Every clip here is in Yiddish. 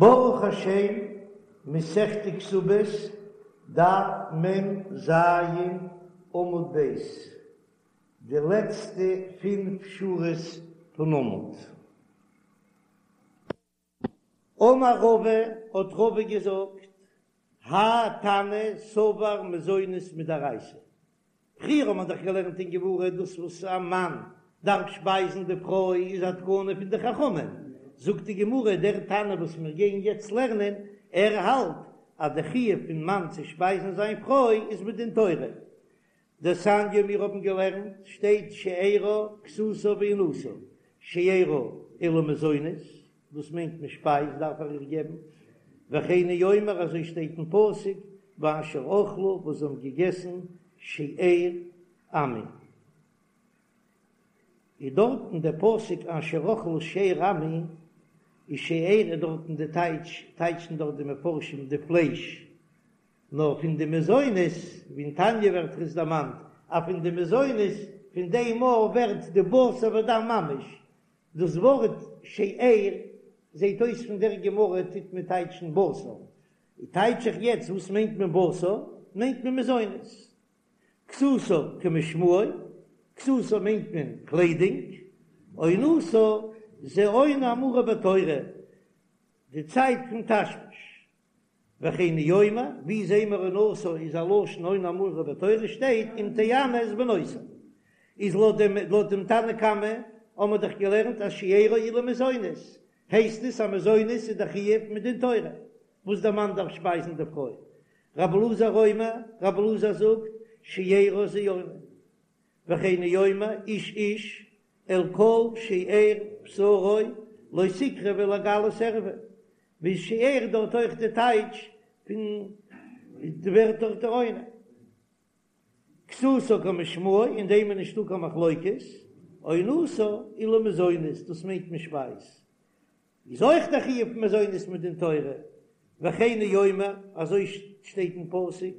ברוך השם, מסכת כתובות, דף מ ז, עמוד ב', די לעצטע פינף שורות פון עמוד. אמר רבא, האט רבא געזאגט, האי תנא סבר מזונות מדאורייתא, פריער האט מען דאך געלערנט אין גמרא דאס וואס א מאן דארף שפייזן די פרוי איז א תקנה פון די חכמים, זאגט די גמרא דער תנא וואס מיר גייען יעצט לערנען, ער האלט אז די חיוב פון מאן צו שפייזן זיין פרוי איז מדין תורה. דתניא מיר האבן געלערנט שטייט שארה כסותה ועונתה, שארה אלו מזונות, דאס מיינט מען שפייז דארף ער איר געבן, וכן הוא אומר אזוי שטייט אין פסוק ואשר אכלו וואס זיי האבן געגעסן שאר עמי, איז דארטן דער פסוק אשר אכלו שאר עמי, איז שאר איז דארטן די טייטש, טייטשן דארט די מפרשים די פלייש, נאר פון די מזונות, ווי אין תניא ווערט עס דערמאנט אז פון די מזונות פון דעם מאל ווערט די בשר ודם ממש, דאס ווארט שאר זעט אויס פון דער גמרא טוט מען טייטשן בשר, טייטש איך יעצט וואס מיינט מען בשר, מיינט מען מזונות. כסותה כמשמעו, כסותה מיינט מען קליידונג, עונתה זה עונה האמורה בתורה, די צייט פון תשמיש. וכן הוא אומר, ווי זעהן מיר עונתה איז א לשון עונה האמורה בתורה שטייט אם תענה את בנותי. איז לויט דעם לויט דעם תנא קמא האבן מיר דאך געלערנט אז שארה אלו מזונות, הייסט עס אז מזונות איז דער חיוב מדין תורה וואס דער מאן דארף שפייזן די פרוי. רבי אלעזר אומר, רבי אלעזר זאגט, שארה זה עונה. וכן הוא אומר, איש איש אל כל שאר בשרו לא תקרבו לגלות ערווה, ווי שאר דארט אויך די טייטש פון די ווערט דארט די עונה. כסותה כמשמעו, אין דעם איז נישטא קיין מחלוקת, עונתה אלו מזונות, דאס מיינט מען שפייז, איז אויך דער חיוב פון מזונות מדין תורה, וכן הוא אומר, אזוי שטייט אין פסוק,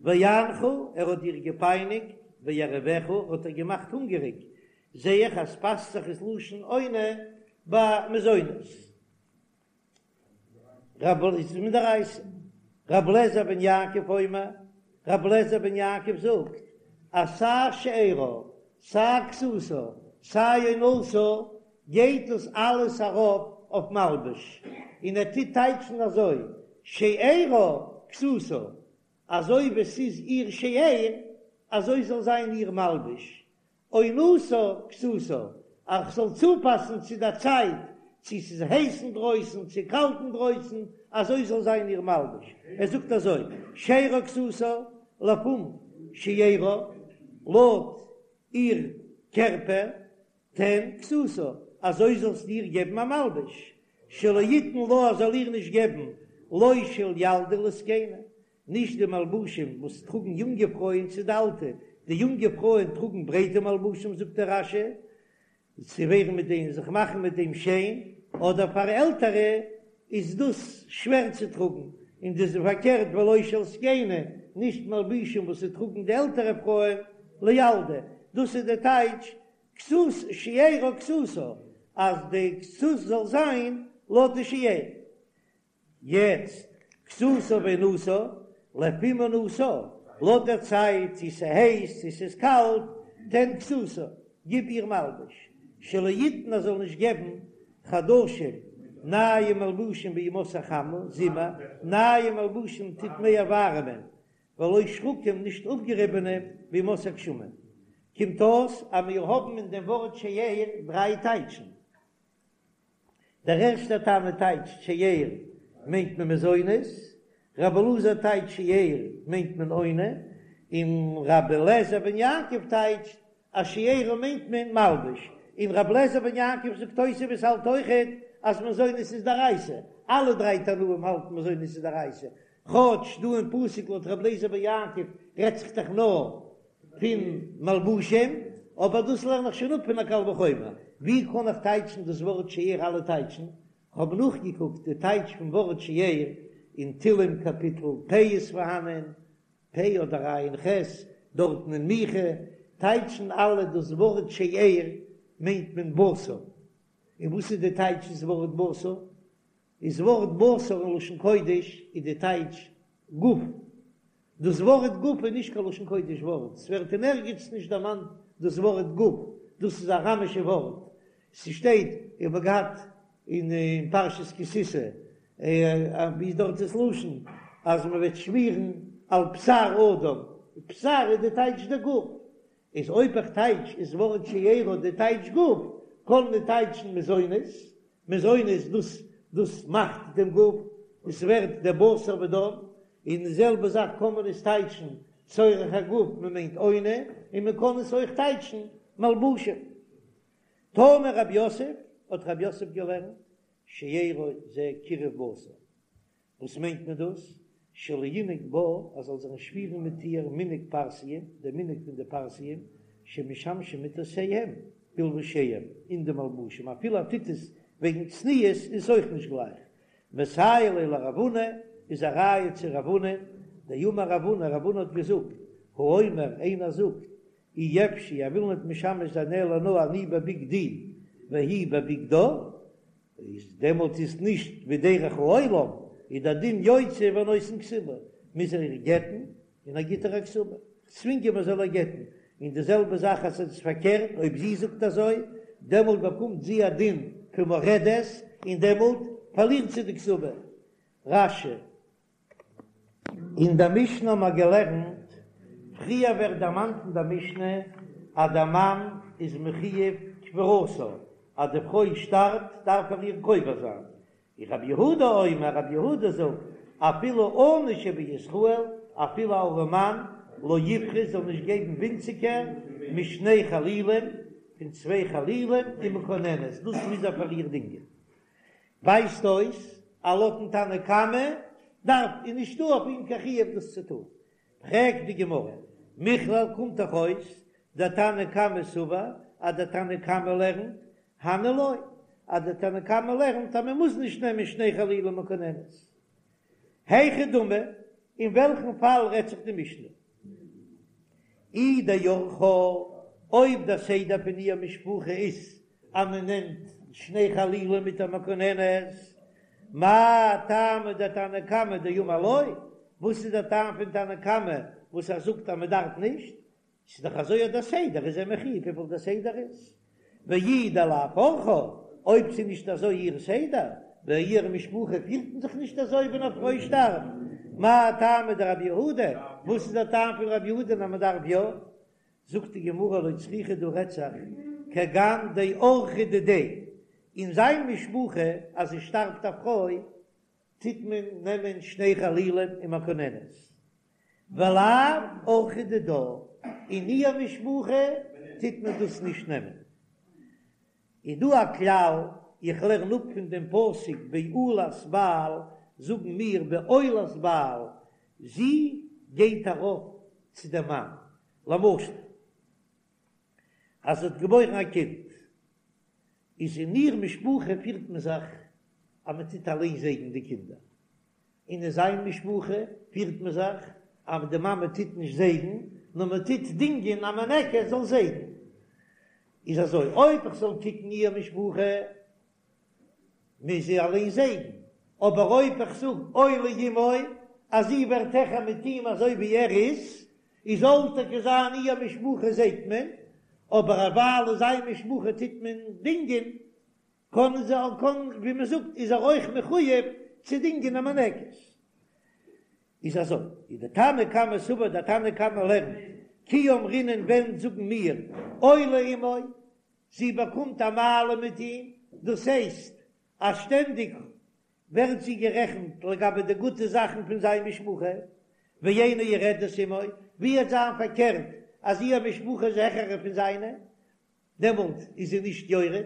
ויענך, ער האט דיר געפייניגט, וירעיבך, האט ער געמאכט הונגעריג, זע איך אז פאסט זיך עס לשון עונה ביי מזונות. רב איז מדאורייתא. רב לעזער בן יעקב אומר, רב לעזער בן יעקב זאגט אז סיי שארה, סיי כסותה, סיי עונתה, גייט דאס אלעס ארויף אויף מלבוש, און ער טוט טייטשן אזוי, שארה כסותה, אזוי ווי ס'איז איר שאר, אזוי זאל זיין איר מלבוש, עונתה כסותה, אז כ'זאל צופאסן צו דער צייט, צו ס'איז הייס אינדרויסן צו קאלט אינדרויסן, אזוי זאל זיין איר מלבוש. ער זאגט אזוי, שארה כסותה, לפום שיערה, לויט איר קערפער, תן כסותה, אזוי זאלסטו איר געבן א מלבוש, שלא יתן לה, ער זאל איר נישט געבן, לא של ילדה לזקנה, נישט די מלבושים וואס טראגן יונגע פרויען צו די אלטע, די יונגע פרויען טראגן ברייטע מלבושים זאגט דער רש"י, צו ווערן מיט דעם זיך מאכן מיט דעם שיין, אדער פאר עלטערע איז דאס שווער צו טראגן, און דאס איז פארקערט ולא של זקנה, נישט מלבושים וואס ס'טראגן די עלטערע פרויען לילדה, דאס איז די טייטש כסות שארה כסותה, אז די כסות זאל זיין לויט די שאר. יעצט, כסותה ועונתה, לפום עונתה, לויט דער צייט צו ס'הייס צו ס'איז קאלט, תן כסותה, גיב איר מלבוש, שלא יתן ער זאל נישט געבן חדשים, נייע מלבושים בימות החמה, זומער, נייע מלבושים טוט מער ווארעמען, ולא שחקים נישט אפגעריבענע בימות הגשמים. קומט אויס אז מיר האבן אין דעם ווארט שאר דריי טייטשן. דער ערשטער תנא טייטשט שאר מיינט מען מזונות, רבי אלעזר טייטשט שאר מיינט מען עונה, און רבי אליעזר בן יעקב טייטשט אז שארה מיינט מען מלבוש, און רבי אליעזר בן יעקב זאגט תוספות האלט אויכעט אז מזונות איז דאורייתא, אלע דריי תנאים האלטן מזונות איז דאורייתא, כאטש דא אין פסוק לויט רבי אליעזר בן יעקב רעדט זיך דאך נאר פון מלבושים, אבער דאס לערן איך שוין אפ פון א קל וחומר. ווי קען איך טייטשן דאס ווארט שאר אלע טייטשן? כ'האב נאכגעקוקט די טייטש פון ווארט שאר אין תהלים קאפיטל פ' איז פארהאנען, פ' אדער ע"ח, דארטן אין מיכה טייטשן אלע דאס ווארט שאר מיינט מען בשר. און וואס איז די טייטש דאס ווארט בשר? איז ווארט בשר אין לשון קודש איז די טייטש גוף, דאס ווארט גוף איז נישט קיין לשון קודש ווארט, ס'ווערט אין ערגעץ נישט דערמאנט דאס ווארט גוף, דאס איז א אראמישע ווארט, ס'שטייט, איך האב געהאט אין פרשת כי תשא, ווי איז דארט דאס לשון אז מען וועט שמירן על בשר אדם, בשר איז די טייטש די גוף, איז אויב איך טייטש איז ווארט שארה די טייטש גוף, קען מען טייטשן מזונות, מזונות דאס דאס מאכט דעם גוף, עס ווערט דער בשר ודם, און די זעלבע זאך קען מען עס טייטשן צורך הגוף מען מיינט עונה, און מען קען עס אויך טייטשן מלבושים. תנא רב יוסף, האט רב יוסף געלערנט, שארו זה קירוב בשר, וואס מיינט מען דאס? שלא ינהג בה, אז זאל זיך נישט פירן מיט איר מנהג פרסיים, דער מנהג פון די פרסיים, שמשמשים מטותיהם בלבושיהם, אין די מלבושים, אפילו ער טוט עס וועגן צניעות איז עס אויך נישט גלייך. מסייע ליה לרב הונא, איז א ראיה צו רב הונא, דאמר רב הונא, רב הונא האט געזאגט, האומר, איינער זאגט, אי אפשי, ער וויל ניט משמש זיין אלא נאר אני בבגדי והיא בבגדה, איז דעמאלט איז נישט ווי דרך העולם, איז דער דין יוציא ונותן כתובה, מוז ער איר גט'ן און ער גיט איר א כתובה, צווינגען מען זאל איר גט'ן, און די זעלבע זאך אז עס איז פארקערט אויב זי זאגט אזוי, דעמאלט באקומט זי א דין פון מורדת און דעמאלט פארלירט זי די כתובה. רש"י. אין דער משנה האבן מיר געלערנט, פריער ווערט דערמאנט אין דער משנה אז דער מאן איז מחויב קבורתה, אז די פרוי שטארבט דארף ער איר קובר זיין, און רבי יהודה אומר, רבי יהודה זאגט, אפילו עני שבישראל, אפילו א ארעמאן, לא יפחות זאל נישט געבן ווינציגער משני חלילים, פון צוויי חלילים ומקוננת, דאס מוז ער פאר איר דינגען. ווייזט אויס אז לויטן תנא קמא דארף איז נישטא אויף אים קיין חיוב דאס צו טון. פרעגט די גמרא, מכלל קומט דאך אויס דתנא קמא סבר אז דער תנא קמא לערנט הני לא, אז דער תנא קמא לערנט אז מען מוז נישט נעמען שני חלילים ומקוננת. היכי דמי, אין וועלכן פאל רעדט זיך די משנה? אי דאורחה, אויב דער סדר פון איר משפחה איז אז מען נעמט שני חלילים מיט א מקוננת, מאי טעמא דתנא קמא דאמר לא, וואס איז דער טעם פון תנא קמא וואס ער זאגט אז מען דארף נישט, ס'איז דאך אזוי דער סדר איז ער מחויב וויפיל דער סדר איז, ואי דלאו אורחה, אויב ס'איז נישט אזוי איר סדר, ביי איר משפחה פירט מען זיך נישט אזוי ווען א פרוי שטארבט, מאי טעמא דרבי יהודה, וואס איז דער טעם פון רבי יהודה אז מען דארף יא? זאגט די גמרא לא צריכא דא רעדט זיך כגון דאורחא דידיה, אין זיין משפחה אז עס שטארבט א פרוי טוט מען נעמען שני חלילים ומקוננת, ולאו אורחא דידה, אין איר משפחה טוט מען דאס נישט נעמען. איז דא א כלל, איך לערן אפ פון דעם פסוק בעולת בעל, זאגן מיר בעולת בעל, זי גייט ארויף צו דעם מאן, למשל אז זי האט געבוירן א קינד, איז אין איר משפחה פירט מען זיך אז מען טוט אליין זייגן די קינדער, און אין זיין משפחה פירט מען זיך אז די מאמע טוט נישט זייגן, נאר מען טוט דינגען א מינקת זאל זייגן. איז אזוי, אויב איך זאל קוקן איר משפחה, מוז זי אליין זייגן, אבער אויב איך זאג עולה עמו, אז זי ווערט העכער מיט אים אזוי ווי ער איז, איז זאל טאקע זיין איר משפחה זייגט מען, אבער ווייל אין זיין משפחה טוט מען דינגען, קען זי קען ווי מען זאגט איז ער אויך מחויב צו דינגען א מינקת. איז אזוי, איז די תנא קמא סבר דער תנא קמא לערנט, כי אמרינן ווען זאגן מיר עולה עמו, זי באקומט א מעלה מיט אים, דאס הייסט אז שטענדיג ווערט זי גערעכנט לגבי די גוטע זאכן פון זיין משפחה, ואינה יורדת עמו, ווי וועט זיין פארקערט אז איר משפחה איז העכערע פון זיינע, דעמאלט איז זי נישט יורד.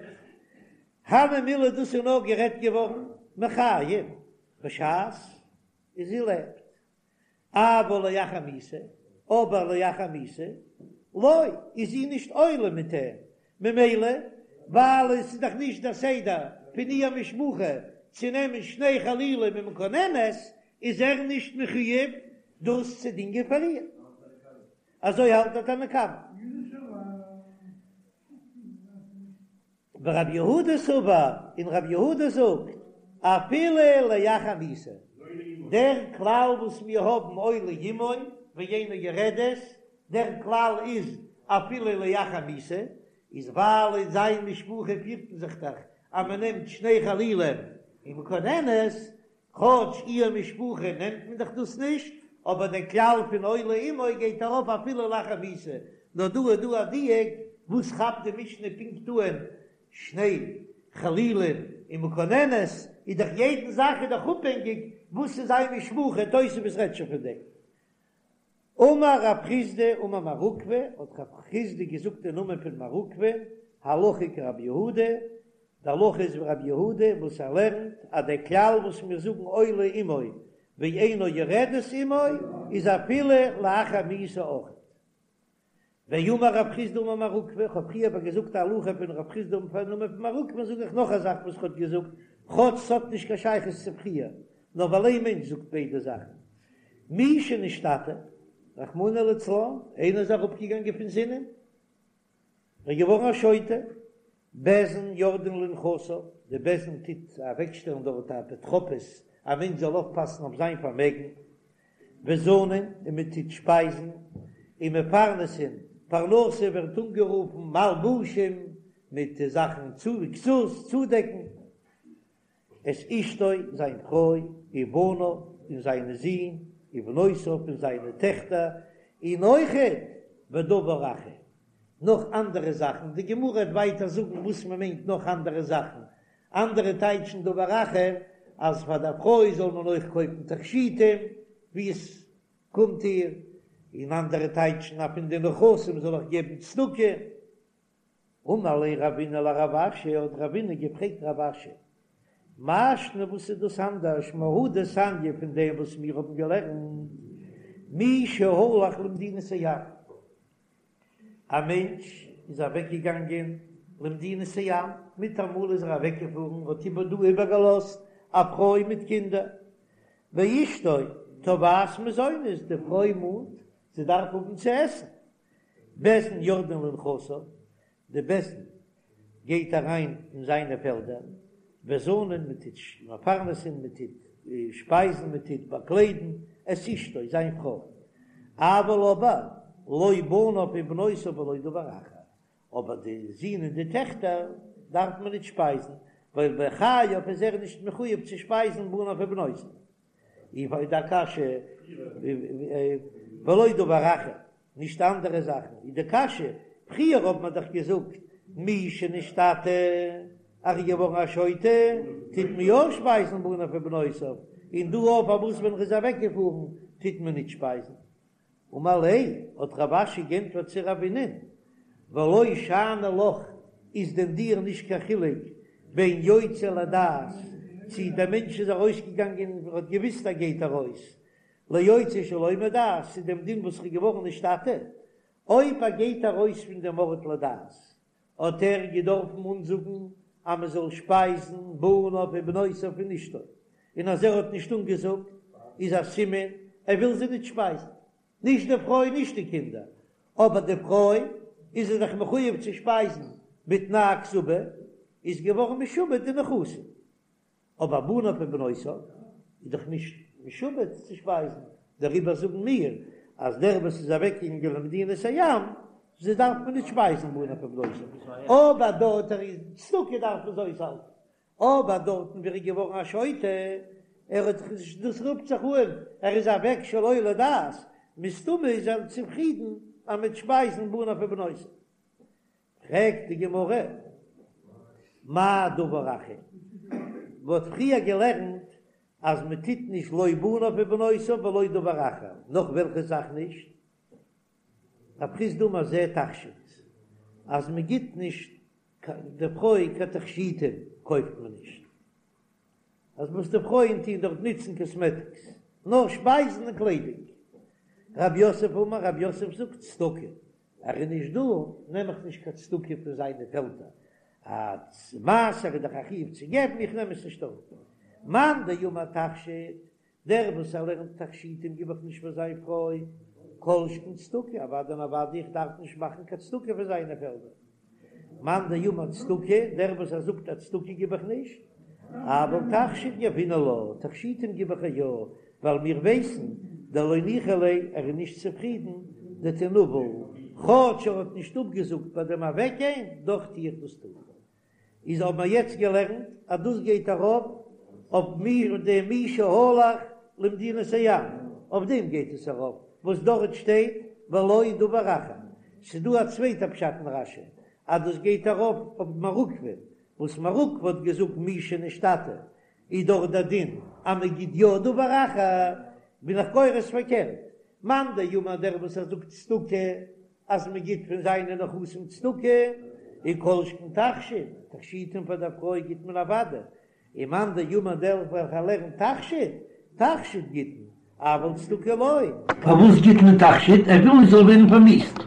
הני מילי דאס איז נאר גערעדט געווארן מחיים בשעת זי לעבט, אבל לאחר מיתה, אבער לאחר מיתה לא, איז זי נישט עולה מיט אים, ממילא ווייל עס איז דאך נישט דער סדר פון איר משפחה צו נעמען שני חלילים ומקוננת, איז ער נישט מחויב דאס צו דינגען פאר איר. אזוי האלט דער תנא קמא. ורבי יהודה סבר, און רבי יהודה זאגט. אפילו לאחר מיתה, דער כלל וואס מיר האבן עולה עמו ואינה יורדת, דער כלל איז אפילו לאחר מיתה, איז ווייל אין זיין משפחה פירט מען זיך דאך אז מען נעמט שני חלילים ומקננת, כאטש איר משפחה נעמט מען דאך דאס נישט, אבער דער כלל פון עולה עמו גייט ארויף אפילו לאחר מיתה, נאר דא איז דא א דיוק, וואס כאפט די משנה פונקט אן שני חלילים ומקננת, איז דאך יעדן זאך איז דאך אפהענגיק וואס איז זיין משפחה, תוספות רעדט שוין פון דעם. אמר רב חסדא אמר מר עוקבא, האט רב חסדא געזאגט אין נאמען פון מר עוקבא, הלכה כרבי יהודה, די הלכה איז ווי רבי יהודה וואס ער לערנט אז דער כלל וואס מיר זאגן עולה עמו ואינה יורדת עמו איז אפילו לאחר מיתה אויך. ואמר רב חסדא אמר מר עוקבא, איך האב פריער אבער געזאגט א הלכה פון רב חסדא אין נאמען פון מר עוקבא זאג איך נאך א זאך וואס ער האט געזאגט, כאטש ס'האט נישט קיין שייכות צו פריער, נאר ווייל איין מענטש זאגט ביידע זאכן. מי שנשתטה, רחמנא לצלן, איינער איז אראפגעגאנגען פון זינען, ער איז געווארן א שוטה, בית דין יורדין לנכסיו, די בית דין טוט אוועקשטעלן דארט א אפוטרופוס, א מענטש זאל אויפפאסן אויף זיין פארמעגן, וזנין, און מען טוט שפייזן, ומפרנסין, פרנסה ווערט אנגערופן מלבושים, מיט זאכן צו כסות, צודעקן. את אשתו, זיין פרוי, ובניו, און זיינע זין, ובנותיו, און זיינע טעכטער, און אויכעט ודבר אחר, נאך אנדערע זאכן, די גמרא וועט ווייטער זאגן וואס מען מיינט נאך אנדערע זאכן, אנדערע טייטשן דבר אחר, אז פאר דער פרוי זאל מען אויך קויפן תכשיטים, ווי עס קומט איר, און אנדערע טייטשן אז פון די נכסים זאל איך געבן צדקה. אמר ליה רבינא לרב אשי, האט רבינא געפרעגט רב אשי, מאי שנא וואס איז דאס אנדערש מהא דתניא פון דעם וואס מיר האבן געלערנט, מי שהלך למדינת הים, א מענטש איז אוועק געגאנגען למדינת הים, מיטאמאל איז ער אוועק געפארן, האט איבער דא איבערגעלאזט א פרוי מיט קינדער, ואשתו תובעת מזונות, די פרוי מאנט זי דארף האבן צו עסן, בית דין יורדין לנכסיו, די בית דין גייט אריין אין זיינע פעלדער, וזנין מען טוט מפרנסין, מען טוט שפייזן, מען טוט באקליידן, את אשתו, זיין פרוי, אבל אבער לא בניו ובנותיו ולא דבר אחר, אבער די זין און די טעכטער דארף מען ניט שפייזן, ווייל בחייו איז ער נישט מחויב צו שפייזן בניו ובנותיו. איז די קשיא ולא דבר אחר, נישט אנדערע זאכן, איז די קשיא, פריער האט מען דאך געזאגט מי שנשתטה, אז ער איז געווארן א שוטה, טוט מען יא שפייזן בניו ובנותיו, און דא אויף פארוואס ווען ער איז אוועקגעפארן טוט מען נישט שפייזן? אמר ליה, האט רב אשי גענטפערט צו רבינ'ען, ולא שאני לך, איז דען דיר נישט קיין חילוק בין יוצא לדעת, צי דער מענטש איז ארויסגעגאנגען און האט געוויסט ער גייט ארויס, ליוצא שלא מדעת, צו דעם דין וואס איז געווארן נשתטה, אויב ער גייט ארויס פון דעם ארט לדעת, האט ער געדארפן אנזאגן אז מען זאל שפייזן בניו ובנותיו און אשתו, און אז ער האט נישט אנגעזאגט איז א סימן ער וויל זיי נישט שפייזן, נישט די פרוי נישט די קינדער, אבער די פרוי איז ער דאך מחויב צו שפייזן בתנאי הכתובה, איז געווארן משועבד די נכסים. אבער בניו ובנותיו איז דאך נישט משועבד צו שפייזן, דעריבער זאגן מיר אז דער וואס איז אוועקגעגאנגען למדינת הים, זיי דארף מען נישט שפייזן בניו ובנותיו, אבער דארט ער איז צדקה דארף מען זיי אויסהאלטן, אבער דארטן ווי ער איז געווארן א שוטה, ער האט זיך נישט, דאס רופט זיך אן ער איז אוועק שלא לדעת, מסתמא איז ער צופרידן אז מ'וועט שפייזן בניו ובנותיו. פרעגט די גמרא, מאי דבר אחר? מ'האט פריער געלערנט אז מען טוט נישט לא בניו ובנותיו ולא דבר אחר, נאך וועלכע זאך נישט? רב חסדא אמר זה תכשיט, אז מען גיט נישט די פרוי קיין תכשיטים קויפט מען נישט. אז וואס די פרויען טוהן דארט נוצן קאסמעטיקס, נאר שפייזן און קליידונג. רב יוסף אמר, רב יוסף זאגט צדקה, ער איז נישט דא, נעם איך נישט קיין צדקה פון זיינע פעלדער, אז מעשר איז דאך א חיוב צו געבן, איך נעם עס נישט אראפ. מאן דאמר תכשיט, דער וואס ער לערנט תכשיטים גיב איך נישט פאר זיין פרוי, כל שכן צדקה, אוודאי און אוודאי איך דארף נישט מאכן קיין צדקה פון זיינע פעלדער. מאן דאמר צדקה, דער וואס ער זאגט אז צדקה גיב איך נישט, אבל תכשיט יהבינן לה, תכשיטים גיב איך איר יא, ווייל מיר ווייסן דלא ניחא ליה, ער איז נישט צופרידן, דתינוול, כאטש ער האט נישט אפגעזאגט ביי דעם אוועקגיין, דאך טו איך דאס טון. איז האבן מיר יעצט געלערנט אז דאס גייט ארויף אויף מי דעם מי שהלך למדינת הים, אויף דעם גייט עס ארויף וואס דארט שטייט ולא דבר אחר, ס'איז דא א צווייטע פשט אין רש"י אז דאס גייט ארויף אויף מר עוקבא, וואס מר עוקבא האט געזאגט מי שנשתטה איז דאך דער דין אז מען גיט יא דבר אחר, בין איך גורס פארקערט, מאן דאמר דער וואס ער זאגט צדקה אז מען גיט פון זיינע נכסים צדקה, און כל שכן תכשיט, תכשיטים פאר דער פרוי גיט מען אוודאי, און מאן דאמר דער וועלכער לערנט תכשיט, תכשיט גיט מען, אבל צדקה לא. פארוואס גיט מען תכשיט? ער וויל נישט זאל ווערן פארמיאוסט.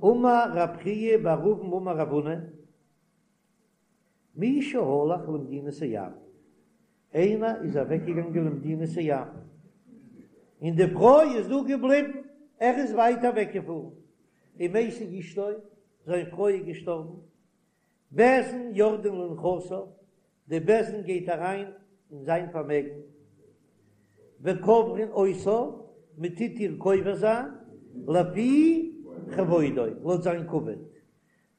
אמר רב חייא בר אבין אמר רב הונא, מי שהלך למדינת הים, איינער איז אוועקגעגאנגען למדינת הים, און די פרוי איז דא געבליבן, ער איז ווייט אוועקגעפארן, ומתה אשתו, זיין פרוי איז געשטארבן, בית דין יורדין לנכסיו, די בית דין גייט אריין אין זיין פארמעגן, וקוברין אותה, מען טוט איר קובר זיין, לפי כבודו, לויט זיין כבוד,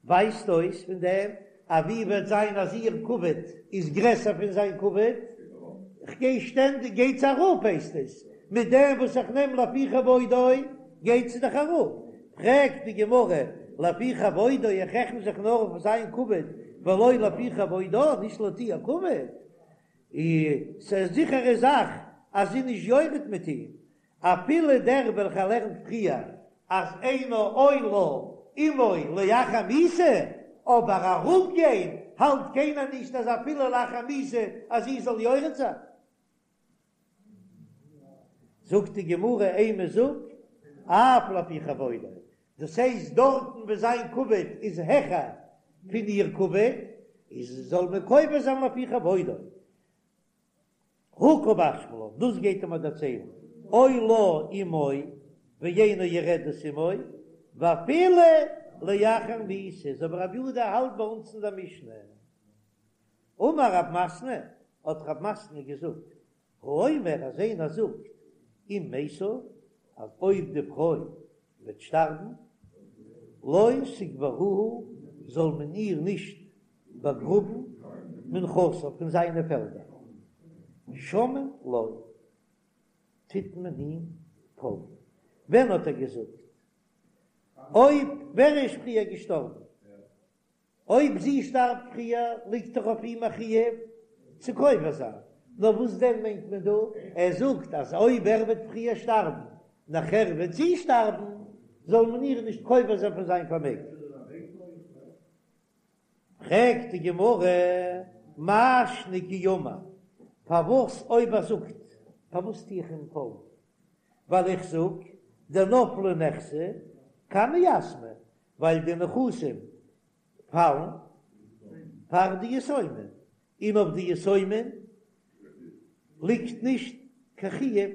ווייזט אויס פון דעם אז ווי וועט זיין אז איר כבוד איז גרעסער פון זיין כבוד, כ'גיי שטענדיג גייט זי אראפ הייסט עס, מיט דעם וואס איך נעם לפי כבודו גייט זי דאך אראפ, פרעגט די גמרא לפי כבודו איך רעכן זיך נאר אויף זיין כבוד ולא לפי כבודה נישט לויט איר כבוד, איז א זיכערע זאך אז זי איז נישט יורד מיט אים, אפילו דער וועלכער לערנט פריער אז אינה עולה עמו לאחר מיתה, אבער אראפגיין האלט קיינער נישט אז אפילו לאחר מיתה אז זי זאל יורד זיין. זאגט די גמרא אימא זאג אף לפי כבודו, דאס הייסט דארטן וואו זיין כבוד איז העכער פון איר כבוד, איז זאל מען קובר זיין לפי כבודו. הא קא משמע לן, דאס גייט ער מיר דערציילן, עולה עמו ואינה יורדת עמו, ואפילו לאחר מיתה, אזוי ווי רבי יהודה האלט ביי אונז אין דער משנה. אמר רב מתנה, האט רב מתנה געזאגט, האומר אז איינער זאגט, אם מתה, אז אויב די פרוי וועט שטארבן, לא תקברוה, זאל מען איר נישט באגראבן מנכסיו פון זיינע פעלדער, שומעין לו, טוט מען אים פאלגן. ווען האט ער געזאגט? אויב ווער איז פריער געשטארבן? אויב זי שטארבט פריער ליגט דאך אויף אים א חיוב צו קובר זיין, נאר וואס דען מיינט מען דא? ער זאגט אז אויב ער וועט פריער שטארבן נאכער וועט זי שטארבן, זאל מען איר נישט קובר זיין פון זיין פארמעגן. פרעגט די גמרא, מאי שנא כי אמר, פארוואס אויב ער זאגט, פארוואס טו איך אים פאלגן? ווייל איך זאג, דנפלי נכסי קמי יתמי, ווייל די נכסים פאלן פאר די יתומים, און אויף די יתומים ליגט נישט קיין חיוב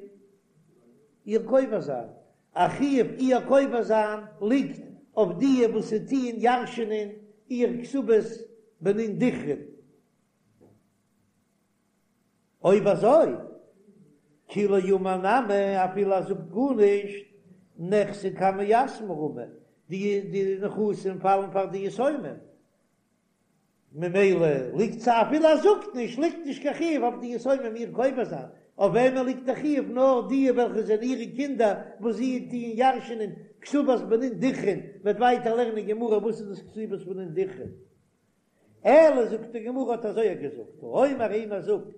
איר קובר זיין, א חיוב איר קובר זיין ליגט אויף די וואס ס'טוען ירש'ענען איר כתובת בנין דכרין. אויב אזוי, כי לא אמר נמי, אפילו ער זאגט גארנישט, נכסי קמי יתמי רמי, די נכסים פאלן פאר די יתומים, ממילא ליגט זיי אפילו ער זאגט נישט, ליגט נישט קיין חיוב אויף די יתומים איר קובר זיין, אויף וועמען ליגט די חיוב? נאר די וועלכע זענען אירע קינדער וואס זיי טוען ירש'ענען כתובת בנין דכרין, מ'וועט ווייטער לערנען אין גמרא וואס איז דאס כתובת בנין דכרין. אלא זאגט די גמרא האט אזוי געזאגט, האומר איינער זאגט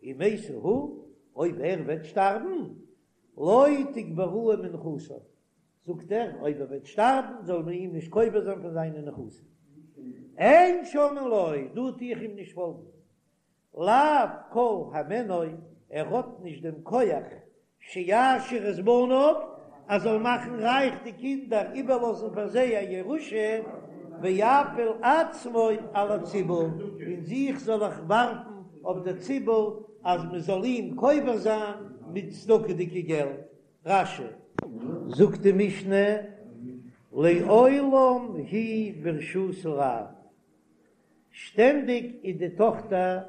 אם מתה הוא, אויב ער וועט שטארבן, לא תקברוה מנכסיו, זאגט ער אויב ער וועט שטארבן זאל מען אים נישט קובר זיין פון זיינע נכסים, אין שומעין לו, דא טו איך אים נישט פאלגן, לאו כל הימנו, ער האט נישט דעם כח שיעשיר את בניו, ער זאל מאכן רייך די קינדער, איבערלאזן פאר זיי א ירושה, ויפיל עצמו על הציבור, און זיך זאל ער ווארפן אויף דער ציבור אז מען זאל אים קובר זיין מיט צדקה'דיגע געלט. רש"י. זאגט די משנה. לעולם היא ברשות האב, שטענדיג איז די טאכטער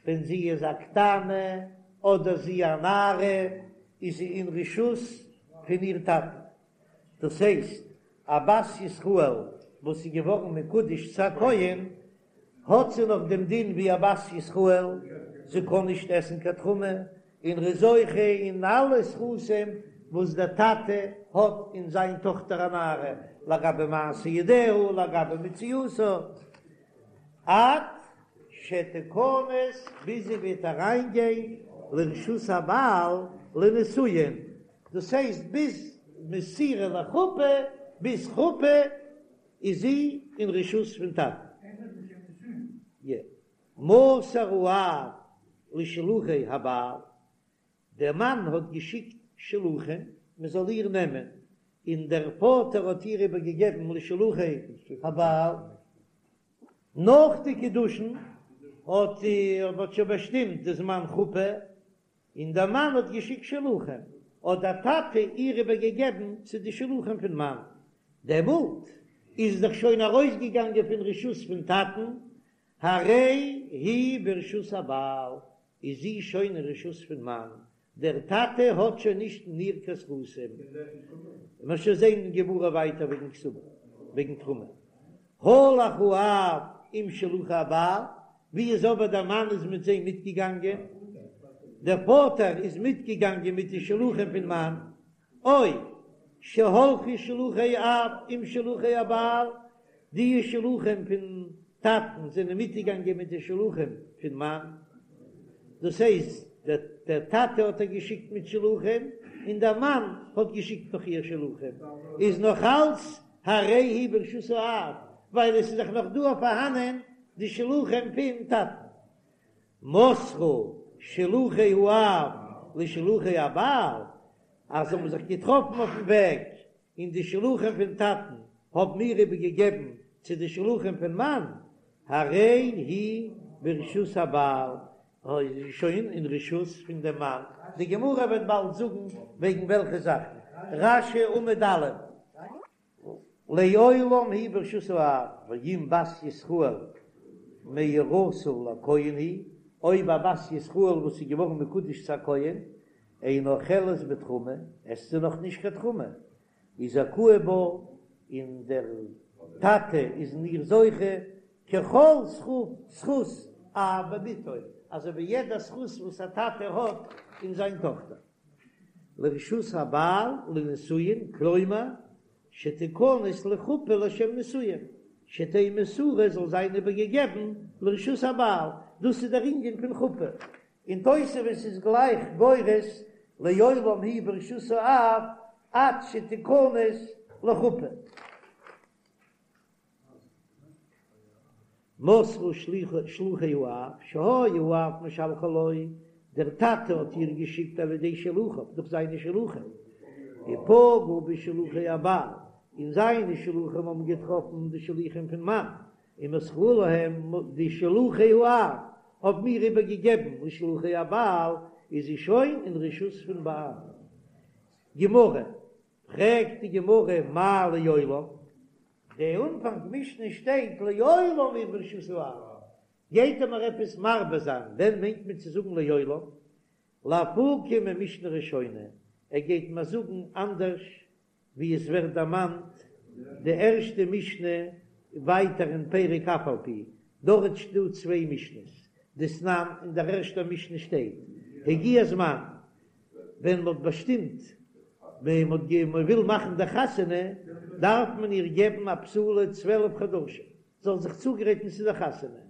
ווען זי איז א קטנה אדער זי א נערה איז זי אין רשות פון איר טאטן, דאס הייסט א בת ישראל וואס איז געווארן מקודש צו א כהן האט זי נאך דעם דין ווי א בת ישראל, זי קען נישט עסן קיין תרומה, און ר'איז זוכה אין אלע זכותים וואס דער טאטע האט אין זיין טאכטער א נערה, לגבי מעשה ידיה, לגבי מציאתה, עד שתכנס ביז זי וועט אריינגיין לרשות הבעל לנישואין, דאס הייסט ביז מסירה לחופה, ביז חופה איז זי אין רשות פון טאטן. מסר האב לשלוחי הבעל, דער מאן האט געשיקט שלוחים מען זאל איר נעמען, און דער פאטער האט איר איבער געגעבן לשלוחי הבעל. נאך די קידושין האט מען שוין באשטימט די זמן חופה, און דער מאן האט געשיקט שלוחים, האט דער טאטע איר איבער געגעבן צו די שלוחים פון מאן, דעמאלט איז דאך שוין ארויסגעגאנגען פון רשות פון טאטן, הרי היא ברשות הבעל, איז זי שוין אין רשות פון מאן, דער טאטע האט שוין נישט אין איר קיין זכותים. מ'וועט שוין זען אין גמרא ווייטער וועגן כתובה, וועגן תרומה. הלך האב עם שלוחי הבעל, ווי איז אבער דער מאן איז מיט זיי מיטגעגאנגען, דער פאטער איז מיטגעגאנגען מיט די שלוחים פון מאן, או שהלכו שלוחי האב עם שלוחי הבעל, די שלוחים פון טאטן זענען מיטגעגאנגען מיט די שלוחים פון מאן, דאס הייסט דער טאטע האט איר געשיקט מיט שלוחים און דער מאן האט געשיקט נאך איר שלוחים, איז נאך אלץ הרי היא ברשות האב, ווייל עס איז דאך נאך דא פארהאנען די שלוחים פון טאטן. מסרו שלוחי האב לשלוחי הבעל, אז זיי האבן זיך געטראפן אויפן וועג, און די שלוחים פון טאטן האבן איר איבערגעגעבן צו די שלוחים פון מאן, הרי היא ברשות הבעל, איז זי שוין אין רשות פון דעם מאן. די גמרא וועט באלד זאגן וועגן וועלכע זאכן. רש"י עמוד א'. לעולם היא ברשות האב, ואם בת ישראל מאורסה לכהן היא, אויב א בת ישראל וואס איז געווארן מקודש צו א כהן, אינה אוכלת בתרומה, עסט זי נאך נישט קיין תרומה, וזכאי בה, און דער טאטע איז אין איר זוכה, ככל זכות אב בבתו, אזוי ווי יעדע זכות וואס א טאטע האט אין זיין טאכטער. לרשות הבעל לנישואין, כלומר, שתכנס לחופה לשם נישואין, שתהא מסורה זאל זיין איבערגעגעבן לרשות הבעל, דאס איז דער ענין פון חופה, און תוספות איז גלייך גורס לעולם היא ברשות האב עד שתכנס לחופה. מסרו שלוחי האב שהיה האב משלחה לו, דער טאטע האט איר געשיקט על ידי שלוחיו, דורך זיינע שלוחים, ופגעו בשלוחי הבעל, און זיינע שלוחים האבן געטראפן די שלוחים פון מאן, ומסרו להם, די שלוחי האב האבן איר איבערגעגעבן לשלוחי הבעל, איז זי שוין אין רשות פון בעל. גמרא, פרעגט די גמרא מאי לעולם, די אנפאנג משנה שטייט לעולם היא ברשות האב, גייט ער מיר עפעס מרבה זיין, ווען מיינט מען צו זאגן לעולם? לאפוקי ממשנה ראשונה, ער גייט מיר זאגן אנדערש ווי עס ווערט דערמאנט די ערשטע משנה ווייטער אין פרק אף על פי, דארט שטא צוויי משנה'ס, דתנן, אין דער ערשטער משנה שטייט הגיע הזמן, ווען מ'האט באשטימט ווען מ'האט מען וויל מאכן די חתונה דארף מען איר געבן א בתולה 12 חדשים זאל זיך צוגרייטן צו די חתונה,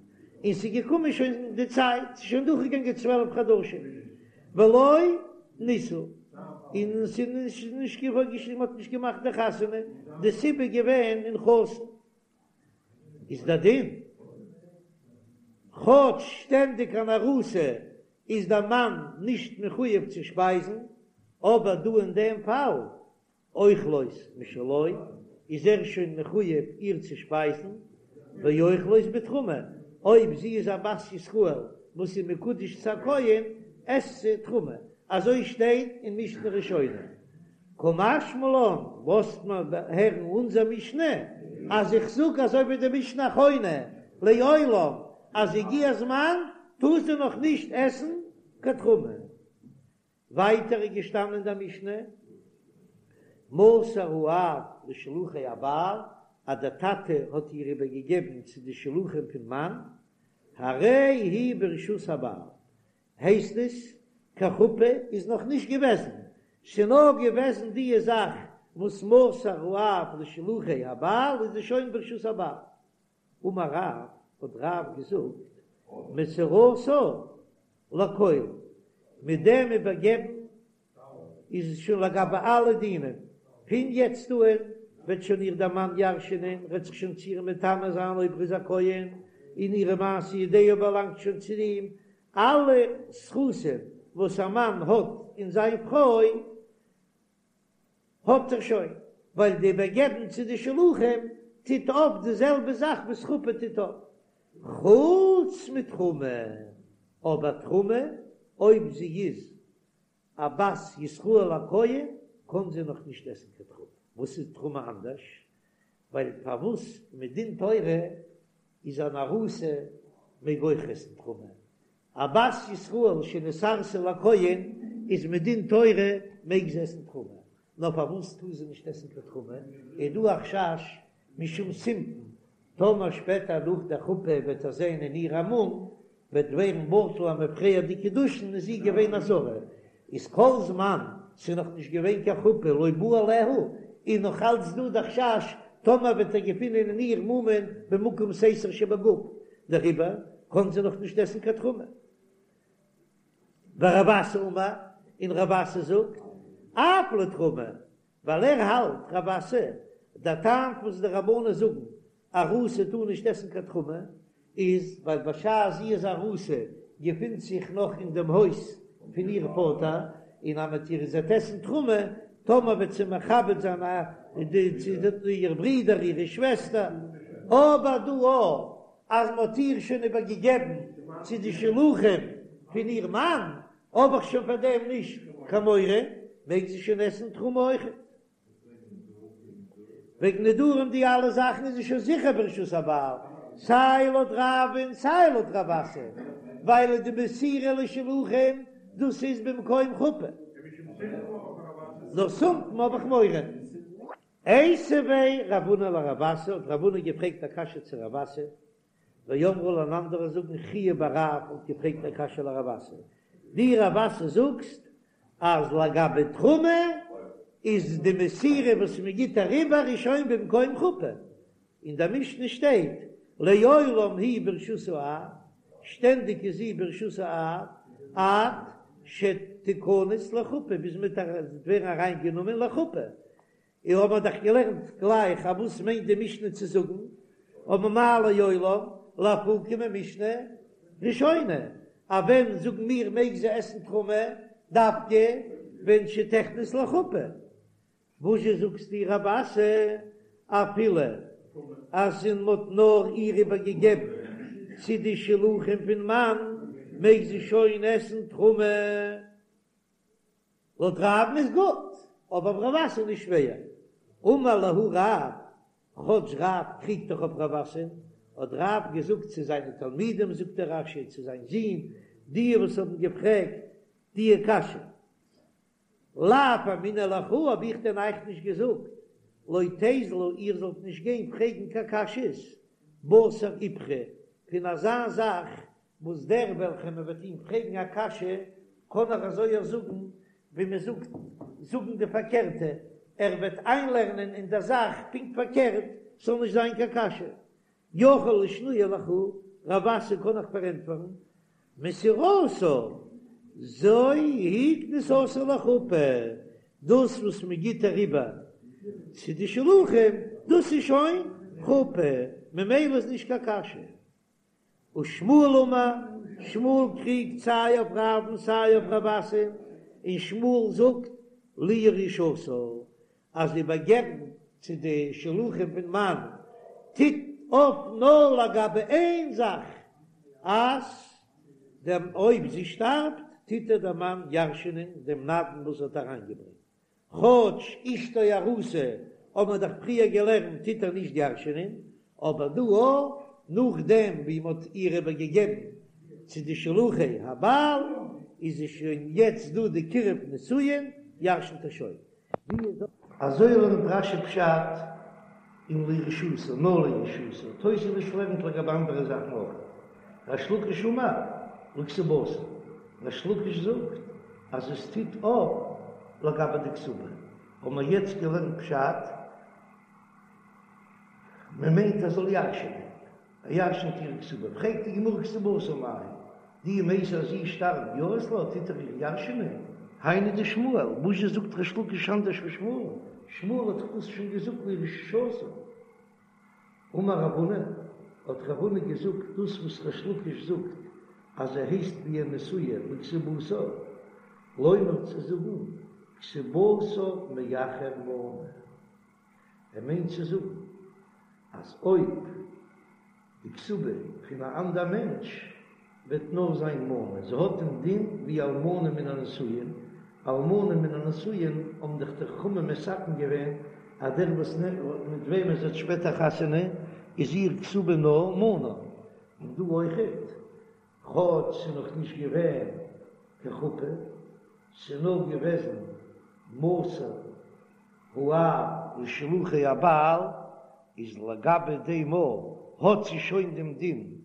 און ס'איז געקומען שוין די צייט, ס'איז שוין דורכגעגאנגען 12 חדשים ולא נישאו, און ס'איז נישט געווארן, מ'האט נישט געמאכט די חתונה, די סיבה איז געווען אין חתן. איז דער דין, כאטש שטענדיג אן ארוסה איז דער מאן נישט מחויב צו שפייזן, אבער דא אין דעם פאל, אוכלות משלו, איז ער שוין מחויב איר צו שפייזן, ואוכלות בתרומה, אויב זי איז א בת ישראל וואס איז מקודש צו א כהן, עסט זי תרומה, אזוי שטייט אין משנה ראשונה. קא משמע לן, לאזט מען הערן אונזער משנה, אז איך זאג אזוי ווי די משנה אחרונה, לעולם, אז הגיע הזמן טאר זי נאך נישט עסן קיין תרומה. ווייטער איז געשטאנען אין דער משנה, מסר האב לשלוחי הבעל, אז דער טאטע האט איר איבערגעגעבן צו די שלוחים פון מאן, הרי היא ברשות הבעל, הייסט עס, קיין חופה איז נאך נישט געוועזן, ס'נאר געוועזן דיע זאך וואס מסר האב לשלוחי הבעל איז זי שוין ברשות הבעל. אמר רב, האט רב געזאגט, מסירתה לכל, מיט דעם איבערגעבן איז עס שוין לגבי אלע דינים, פון יעצט אן וועט שוין איר דער מאן ירש'ענען, וועט זיך שוין צו איר מטמא זיין אויב ער איז א כהן, און אירע מעשה ידיה באלאנגט שוין צו אים, אלע זכותים וואס א מאן האט אין זיין פרוי האט ער שוין, ווייל די איבערגעבן צו די שלוחים טוט אויף די זעלבע זאך וואס חופה טוט אויף, חוץ מתרומה, אבער תרומה אויב זי איז א בת ישראל א כהן קען זי נאך נישט עסן קיין תרומה, וואס איז תרומה אנדערש? ווייל פארוואס מדין תורה איז אן ארוסה מעג אויך עסן תרומה, א בת ישראל שנתארסה לכהן איז מדין תורה מעג זי עסן תרומה, נאר פארוואס טאר זי נישט עסן קיין תרומה? איז דא א חשש משום סימפון, טאמער שפעטער נאך דער חופה וועט ער זען אין איר א מום, וועט ווערן בטל למפרע די קידושין איז זי געווען א זרה, איז כל זמן ס'איז נאך נישט געווען קיין חופה לא בא עליה, איז נאך אלץ דא די חשש טאמער וועט ער געפינען אין איר מומין במקום סתר שבגוף, דעריבער קען זי נאך נישט עסן קיין תרומה. ורב אסי אמר, און רב אסי זאגט, אף לתרומה, ווייל ער האלט, רב אסי, דער טעם וואס די רבנן זאגן ארוסה טאר נישט עסן קיין תרומה, איז ווייל בשעת זי איז ארוסה געפינט זיך נאך אין דעם הויז פון איר פאטער, און אז מ'וועט איר זי וועט עסן תרומה, טאמער וועט זי מכבד זיין איר ברודער אירע שוועסטער, אבער דא אויך אז מ'האט איר שוין איבערגעגעבן צו די שלוחים פון איר מאן, האב איך שוין פאר דעם נישט קיין מורא, מעג זי שוין עסן תרומה אויכעט. וועגן נדרים די אלע זאכן איז זי שוין זיכער ברשות הבעל, סיי לויט רב און סיי לויט רב אסי, ווייל די מסירה לשלוחים דאס איז במקום חופה. נאר סימפון האב איך מורא. איתיביה רב הונא לרב אסי, האט רב הונא געפרעגט א קשיא צו רב אסי, ואמרי לה און אנדערע זאגן חייא בר רב האט געפרעגט א קשיא לרב אסי, דו רב אסי זאגסט אז לגבי תרומה איז די מסירה וואס מען גיט אריבער איז שוין במקום חופה, אין דער משנה שטייט לעולם היא ברשות האב, שטענדיג איז זי ברשות האב עד שתכנס לחופה ביז מען וועט ווערן אריינגענומען לחופה, און האבן מיר דאך געלערנט גלייך אז וואס מיינט די משנה צו זאגן, אבער מאי לעולם לאפוקי ממשנה ראשונה, אז ווען זאגן מיר מעג זי עסן תרומה דווקא ווען שתכנס לחופה, וואזשע זאגסטו רב אסי אפילו אז מען האט נאר איר איבער געגעבן צו די שלוחים פון מאן מעג זי שוין עסן תרומה? לויט רב'ן איז גוט, אבער אויף רב אסי נישט שווער. אמר להו רב, כאטש רב קריגט דאך אויף רב אסי, האט רב געזאגט צו זיינע תלמידים, זאגט דער רש"י צו זיין זון, די וואס האבן געפרעגט די קשיא, לאו אמינא לכו, האב איך דען אייך נישט געזאגט, לא תיזלו איר זאלט נישט גיין פרעגן קיין קשיות, בתר איפכא, פון אזא זאך וואס דער וועלכער מען וועט אים פרעגן א קשיא קען ער אזוי אויך זאגן ווי מען זאגט זאגן די פארקערטע, ער וועט איינלערנען אין דער זאך פונקט פארקערט ס'זאל נישט זיין קיין קשיא. יכול לשנויי לכו, רב אסי קען איך פארענטפערן, מסירתה זו היא כניסתה לחופה, דאס וואס מען גיט אריבער צו די שלוחים דאס איז שוין חופה, ממילא איז נישט קיין קשיא. ושמואל אמר, שמואל קריגט סיי אויף רב'ן סיי אויף רב אסי, און שמואל זאגט לירושתה אז איבערגעבן צו די שלוחים פון מאן טוט אויף נאר לגבי איין זאך, אז דעם אויב זי שטארבט טוט איר דער מאן ירש'ענען דעם נדן וואס ער האט אריינגעברענגט. כאטש אשתו ארוסה האט מען דאך פריער געלערנט טוט ער נישט ירש'ענען, אבער דא א, נאכדעם ווי מען האט איר איבער געגעבן צו די שלוחי הבעל, איז עס שוין יעצט דא די קירוב נישואין, ירש'נט ער שוין. אזוי לערנט רש"י פשט אין לירושתה, נאר לירושתה, תוספות לערנט לגבי אנדערע זאכן אויך. ריש לקיש אמר לכתובתה, ריש לקיש זאגט אז עס טוט אויף לגבי די כתובה, האבן מיר יעצט געלערנט פשט, מען מיינט ער זאל ירש'ענען, ער ירש'נט איר כתובה, פרעגט די גמרא כתובתה מאי, דאי מתה אז זי שטארבט יהבת לה, טוט ער איר ירש'ענען? היינו דשמואל, וואזשע זאגט ריש לקיש אנדערש ווי שמואל? שמואל האט דאך דאס שוין געזאגט לירושתה. אמר רב הונא, האט רב הונא געזאגט דאס וואס ריש לקיש זאגט אז ער הייסט ווי א נשואה לכתובתה, לומר צו זאגן כתובתה מאחר מנה. ער מיינט צו זאגן אז אויב די כתובה פון א אנדער מענטש וועט נאר זיין מנה, זי האט דעם דין ווי אלמנה מן הנשואין, אלמנה מן הנשואין האבן דאך די חכמים מתקן געווען אז דער וואס מיט וועמען זי האט שפעטער חתונה איז איר כתובה נאר מנה, און דא אויכעט, כאטש ס'איז נאך נישט געווען קיין חופה, ס'איז נאר געוועזן מסר האב לשלוחי הבעל, איז לגבי דעם האט זי שוין דעם דין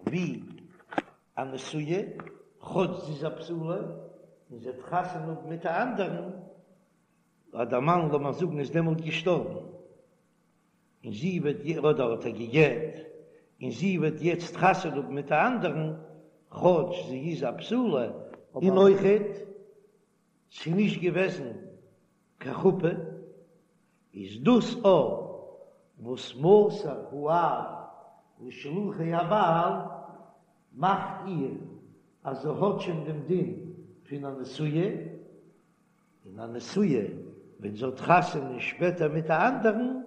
ווי א נשואה, כאטש זי איז א בתולה און זי האט חתונה האבן מיט א אנדערן, אז דער מאן לאמיר זאגן איז דעמאלט געשטארבן, און זי וועט אדער האט ער גע'גט, און זי וועט יעצט חתונה האבן מיט א אנדערן, כאטש זי איז א בתולה, און אויכעט ס'איז נישט געוועזן קיין חופה, איז דאס א וואס מסר האב לשלוחי הבעל מאכט איר אז זי האט שוין דעם דין פון א נשואה, און א נשואה ווען זי האט חתונה שפעטער מיט א אנדערן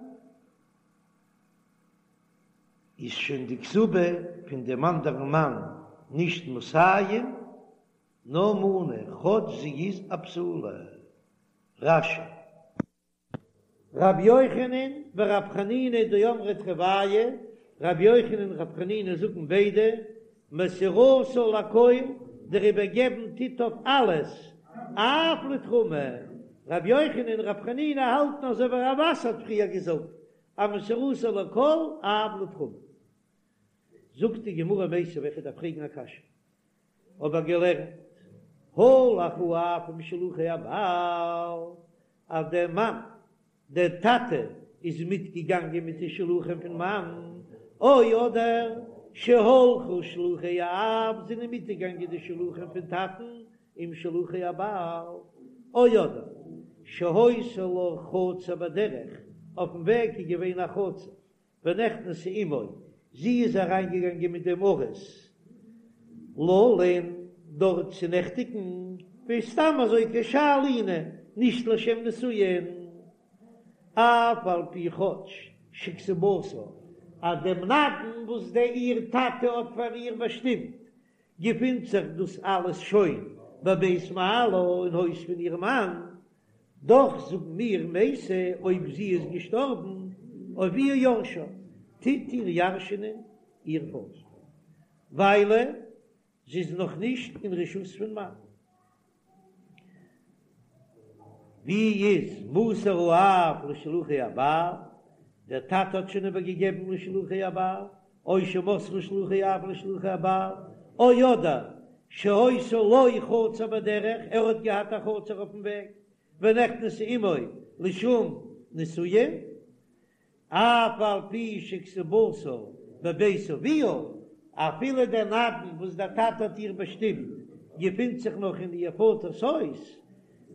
איז שוין די כתובה פון דעם אנדערן מאן נישט מאתים נאר מנה, כאטש זי איז א בתולה. רש"י. רבי יוחנן ורבי חנינא דאמרי תרוייהו, רבי יוחנן און רבי חנינא זאגן ביידע, מסירתה לכל, דער איבערגעבן טוט אויף אלעס, אף לתרומה. רבי יוחנן און רבי חנינא האלטן אזוי ווי רב אסי האט פריער געזאגט, אז מסירתה לכל, אף לתרומה. זאגט די גמרא מיתיבי, איך דארף פרעגן א קשיא. האב איך געלערנט, הלך האב עם שלוחי הבעל, אז דער מאן, דער טאטע, איז מיטגעגאנגען מיט די שלוחים פון מאן, או אדער שהלכו שלוחי האב, זענען מיטגעגאנגען די שלוחים פון טאטן עם שלוחי הבעל, או אדער שהיתה לה חצר בדרך, אויפן וועג איז געווען א חצר, ונכנסה עמו, זי איז אריינגעגאנגען מיט דעם ארוס ללון דארט צו נעכטיגן, ווי סתם אזוי כשאר לינה, נישט לשם נישואין, אף על פי כאטש שכתובתה, אז דעם נדן וואס דער איר טאטע האט פאר איר באשטימט, געפינט זיך דאס אלעס שוין בבית בעלה אין הויז פון איר מאן, דאך זאגן מיר מתה אויב זי איז געשטארבן אביה יורשה, טוט איר ירש'נען איר פאטער, ווייל זי איז נאך נישט אין רשות פון מאן. ווי איז מסר האב לשלוחי הבעל? דער טאטע האט שוין איבער געגעבן לשלוחי הבעל, או שמסרו שלוחי האב לשלוחי הבעל, או אדער שהיתה לו חצר בדרך, ער האט געהאט א חצר אויפן וועג, ונכנסה עמו לשום נישואין, אף על פי שכתובתה בבית אביה, אפילו דער נדן וואס דער טאטע האט איר באשטימט געפינט זיך נאך אין איר פאטער'ס הויז,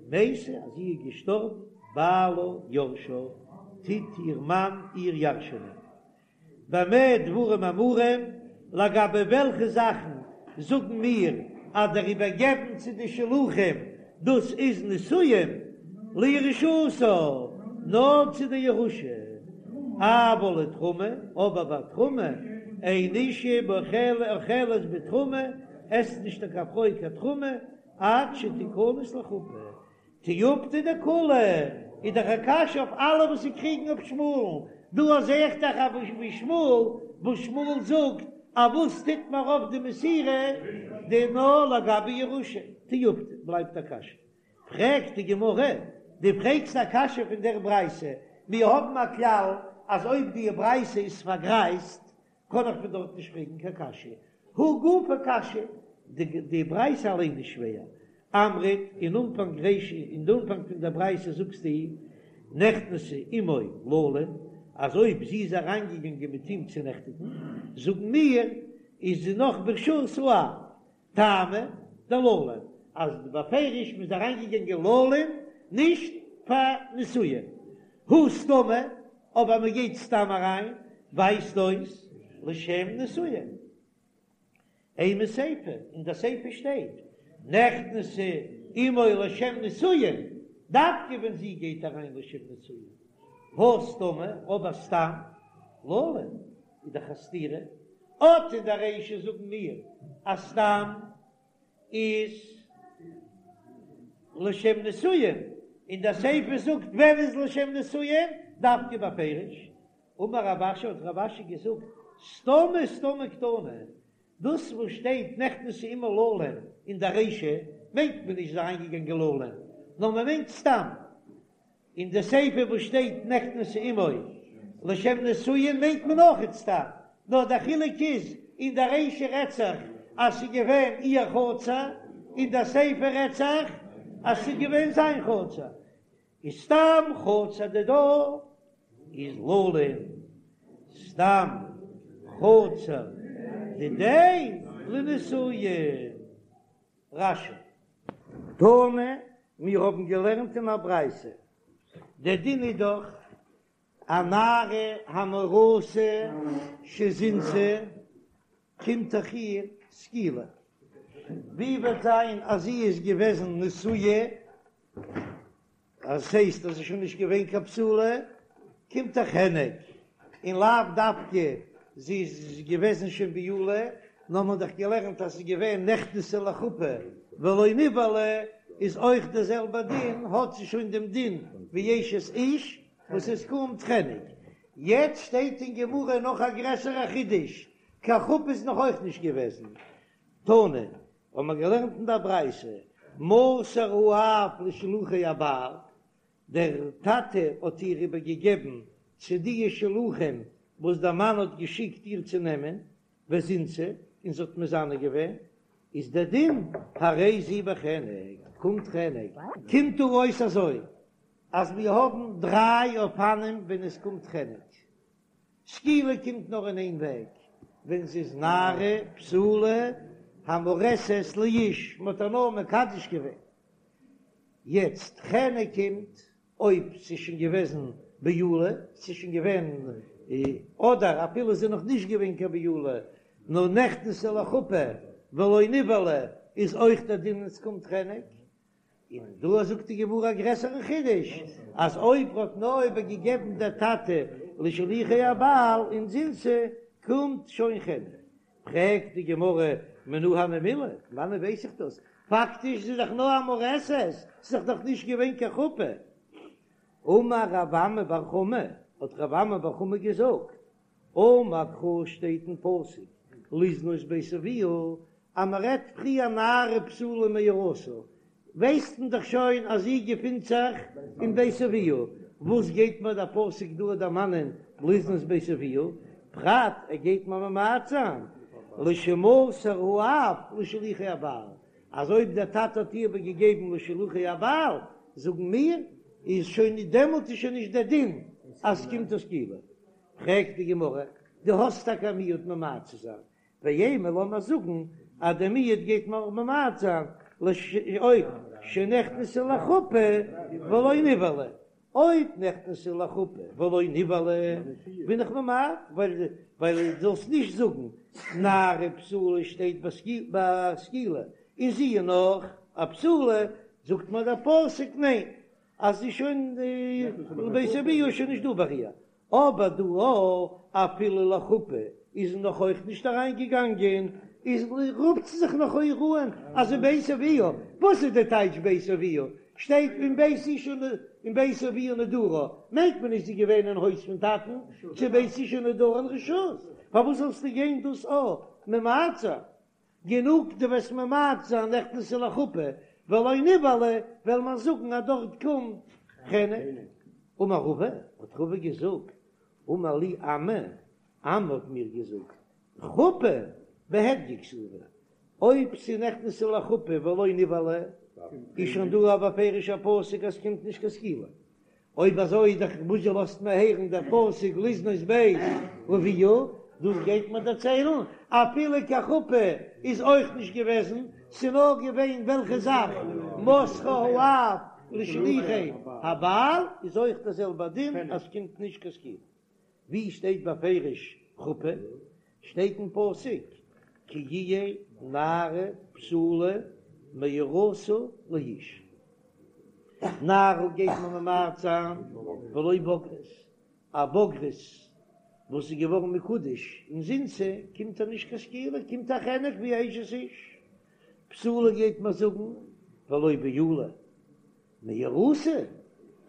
מתה אז זי איז געשטארבן, בעלה יורשה, טוט איר מאן איר ירש'ענען. במה דברים אמורים, לגבי וועלכע זאכן זאגן מיר אז דער איבערגעבן צו די שלוחים דאס איז נישואין לירושתה, נאר צו די ירושה, אבל לתרומה, אבער ביי תרומה, אין אשה אוכלת בתרומה, עסט נישט קיין פרוי קיין תרומה עד שתיכנס לחופה. תיובתא דכולהו, איז דאך א קשיא אויף אלע וואס ס'קריגן אויף שמואל'ן, דא זעה איך דאך אזוי ווי שמואל, וואס שמואל זאגט אז וואס טוט מיר אויף די מסירה, די נאר לגבי ירושה, תיובתא, בלייבט א קשיא. פרעגט די גמרא, דו פרעגסט א קשיא פון דער ברייתא, מיר האבן א כלל אז אויב די ברייתא איז פארגרייזט קען איך פון דארט נישט פרעגן קיין קשיא, הא גופא קשיא, די ברייתא אליין איז שווער, אמרת, אין אנפאנג רישא, אין די אנפאנג פון דער ברייתא זאגסטו, נכנסה עמו ללון, אז אויב זי איז אריינגעגאנגען מיט אים צו נעכטיגן, זאגן מיר, איז זי נאך ברשות האב, טעמא דללון, אז בפירוש מ'איז אריינגעגאנגען ללון נישט פאר נישואין, הא סתמא, אבער מ'גייט סתם אריין ווייזט אויס לשם נישואין. אימא סיפא, אין די סיפא שטייט נכנסה עמו לשם נישואין, דווקא ווען זי גייט אריין לשם נישואין, הא סתמא, אבער סתם ללון איז דאך א סתירה, אט אין די רישא זאגן מיר אז סתם איז לשם נישואין, און די סיפא זאגט ווען איז לשם נישואין, דווקא בפירוש. אמר רב אשי האט רב אשי געזאגט סתמא סתמא קתני, דאס וואס שטייט נכנסה עמו ללון אין די רישא מיינט מען נישט זי איז אריינגעגאנגען ללון, נאר מען מיינט סתם, אין די סיפא וואס שטייט נכנסה עמו לשם נישואין מיינט מען אויכעט סתם, נאר דער חילוק איז אין די רישא רעדט זיך אז ס'איז געווען איר חצר, אין די סיפא רעדט זיך אז ס'איז געווען זיין חצר, איז סתם חצר דידה איז ללון, סתם חצר דידיה לנישואין. רש"י. תנא, מיר האבן געלערנט אין א ברייתא, דער דין איז דאך א נערה המאורסה שזינתה, קומט דאך איר סקילה, ווי וועט זיין אז זי איז געוועזן נשואה אז ס'הייסט אז ס'איז שוין נישט געווען קיין בתולה, קומט איר חנק, און לאו דווקא זי איז געוועזן שוין בעולה, נאר מ'האט דאך געלערנט אז ס'איז געווען נכנסה לחופה ולא נבעלה, איז אויך דער זעלבער דין, האט זי שוין דעם דין ווי אשת איש וואס עס קומט חנק. יעצט שטייט אין גמרא נאך א גרעסערע חידוש, קיין חופה איז נאך אויך נישט געוועזן, תנא, האבן מיר געלערנט אין דער ברייתא, מסר האב לשלוחי הבעל, דער טאטע האט איר איבערגעגעבן צו די שלוחים וואס דער מאן האט געשיקט איר צו נעמען, וזינתה, און זי האט מזנה געווען, איז דער דין, הרי זו בחנק, קומט חנק. קומט דא אויס אזוי, אז מיר האבן דריי אופנים ווען עס קומט חנק. סקילה קומט נאר אין איין וועג, ווען זי איז נערה בתולה המאורסת לאיש, מען האט איר נאר מקדש געווען. יעצט חנק קומט אויב ס'איז שוין געוועזן בעולה, ס'איז שוין געווען, אדער אפילו ס'איז נאך נישט געווען קיין בעולה, נאר נכנסה לחופה ולא נבעלה, איז אויך דער דין עס קומט חנק. און דא זאגט די גמרא א גרעסערן חידוש, אז אויב האט נאר איבערגעגעבן דער טאטע לשלוחי הבעל און זינתה, קומט שוין חנק. פרעגט די גמרא מנא הני מילי, פון וואנעט ווייס איך דאס? פאקטיש איז דאך נאר א מאורסת, ס'איז דאך נאך נישט געווען קיין חופה. אמר רב אמי בר חמא, האט רב אמי בר חמא געזאגט, אמר קרא שטייט אין פסוק לזנות בית אביה, אז מען רעדט פריער נערה בתולה מאורסה, ווייסט מען דאך שוין אז זי געפינט זיך אין בית אביה, וואס גייט מיר דער פסוק דא דערמאנען לזנות בית אביה, פרט ער גייט מיר ממעט זיין לשמסר האב לשלוחי הבעל, אז אויב דער טאטע האט איר איבערגעגעבן לשלוחי הבעל, זאגן מיר, איז שוין דעמאלט איז שוין נישט דער דין אז ס'קומט איר סקילה. פרעגט די גמרא, דו האסט טאקע א מיעוט ממעט צו זיין, ואימא לאמיר זאגן אז דער מיעוט גייט מיר ממעט זיין אויב שנכנסה לחופה ולא נבעלה, אויב נכנסה לחופה ולא נבעלה בין איך ממעט, ווייל ווייל דו זאלסט נישט זאגן נערה בתולה שטייט ביי סקילה און זי איז נאך א בתולה, זאגט מיר דער פסוק ניין אז זי איז שוין בית אביה איז שוין נישט דא ביי איר, אבער דא אפילו לחופה איז זי נאך אויך נישט אריין געגאנגען, איז רופט זי זיך נאך אויך אן אז זי בית אביה, וואס איז די טייטש בית אביה? שטייט ואם בית אשה אם בית אביה נדרה, מיינט מען נישט זי געווען אין הויז פון טאטן, צו בית אשה נדרה אין רשות, פארוואס זאלסטו גיין דאס א ממעט זיין? גענוג דו וועסט ממעט זיין נכנסה לחופה ולא נבעלה, וועל מען זאגן אז דארט קומט חנק. אמר רבא, האט רבא געזאגט, אמר לי אמי, אמי האט מיר געזאגט, חופה בהדיא כתיבא, אויב ס'נכנסה לחופה ולא נבעלה, איז שוין דא א בפירוש'ער פסוק אז ס'קומט נישט קיין סקילה, אויב אזוי איז דאך וואס זשע לאזט מיר הערן דער פסוק לזנות בית אביה, דאס גייט מיר דערציילן, אפילו קיין חופה איז אויך נישט געוועזן, ס'נאר געווען וועלכע זאך, מסרה האב לשלוחי הבעל, איז אויך דער זעלבער דין אז ס'קומט נישט קיין סקילה. ווי שטייט בפירוש חופה? שטייט אין פסוק כי יהיה נערה בתולה מאורסה לאיש. נערה גייט מען ממעט זיין ולא בוגרת, א בוגרת וואס איז געווארן מקודש און זינתה קומט איר נישט קיין סקילה, קומט א חנק ווי א אשת איש. בתולה גייט מען זאגן ולא בעולה. מאורסה,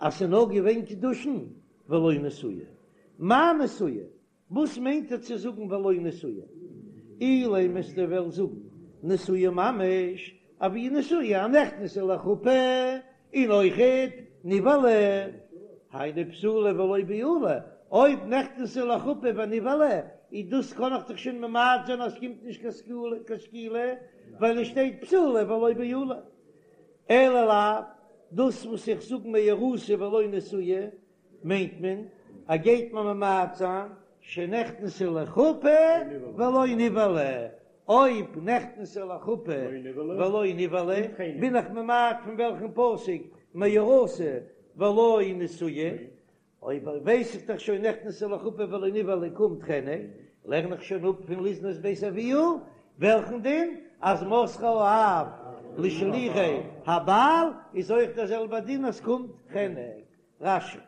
אז ס'איז נאר געווען קידושין ולא נשואה. מאי נשואה? וואס מיינט ער צו זאגן ולא נשואה? אילימא וועסטו וועלן זאגן נשואה ממש, אבי נשואה א נכנסה לחופה און אויכעט נבעלה, היינו בתולה ולא בעולה, אויב נכנסה לחופה ונבעלה, איז דאס קען איך דאך שוין ממעט זיין אז ס'קומט נישט קיין סקילה, ווייל עס שטייט בתולה ולא בעולה. אלא לאו, דאס וואס איך זאג מאורסה ולא נשואה, מיינט מען אז גייט מען ממעט זיין שנכנסה לחופה ולא נבעלה, אויב נכנסה לחופה ולא נבעלה בין איך ממעט פון וועלכן פסוק מאורסה ולא נשואה, אויב ווייס איך דאך שוין נכנסה לחופה ולא נבעלה קומט חנק, לערן איך שוין אפ פון לזנות בית אביה, וועלכן דין? אז מסרה האב לשלוחי הבעל איז אויך דער זעלבער דין אז קומט חנק. רש"י.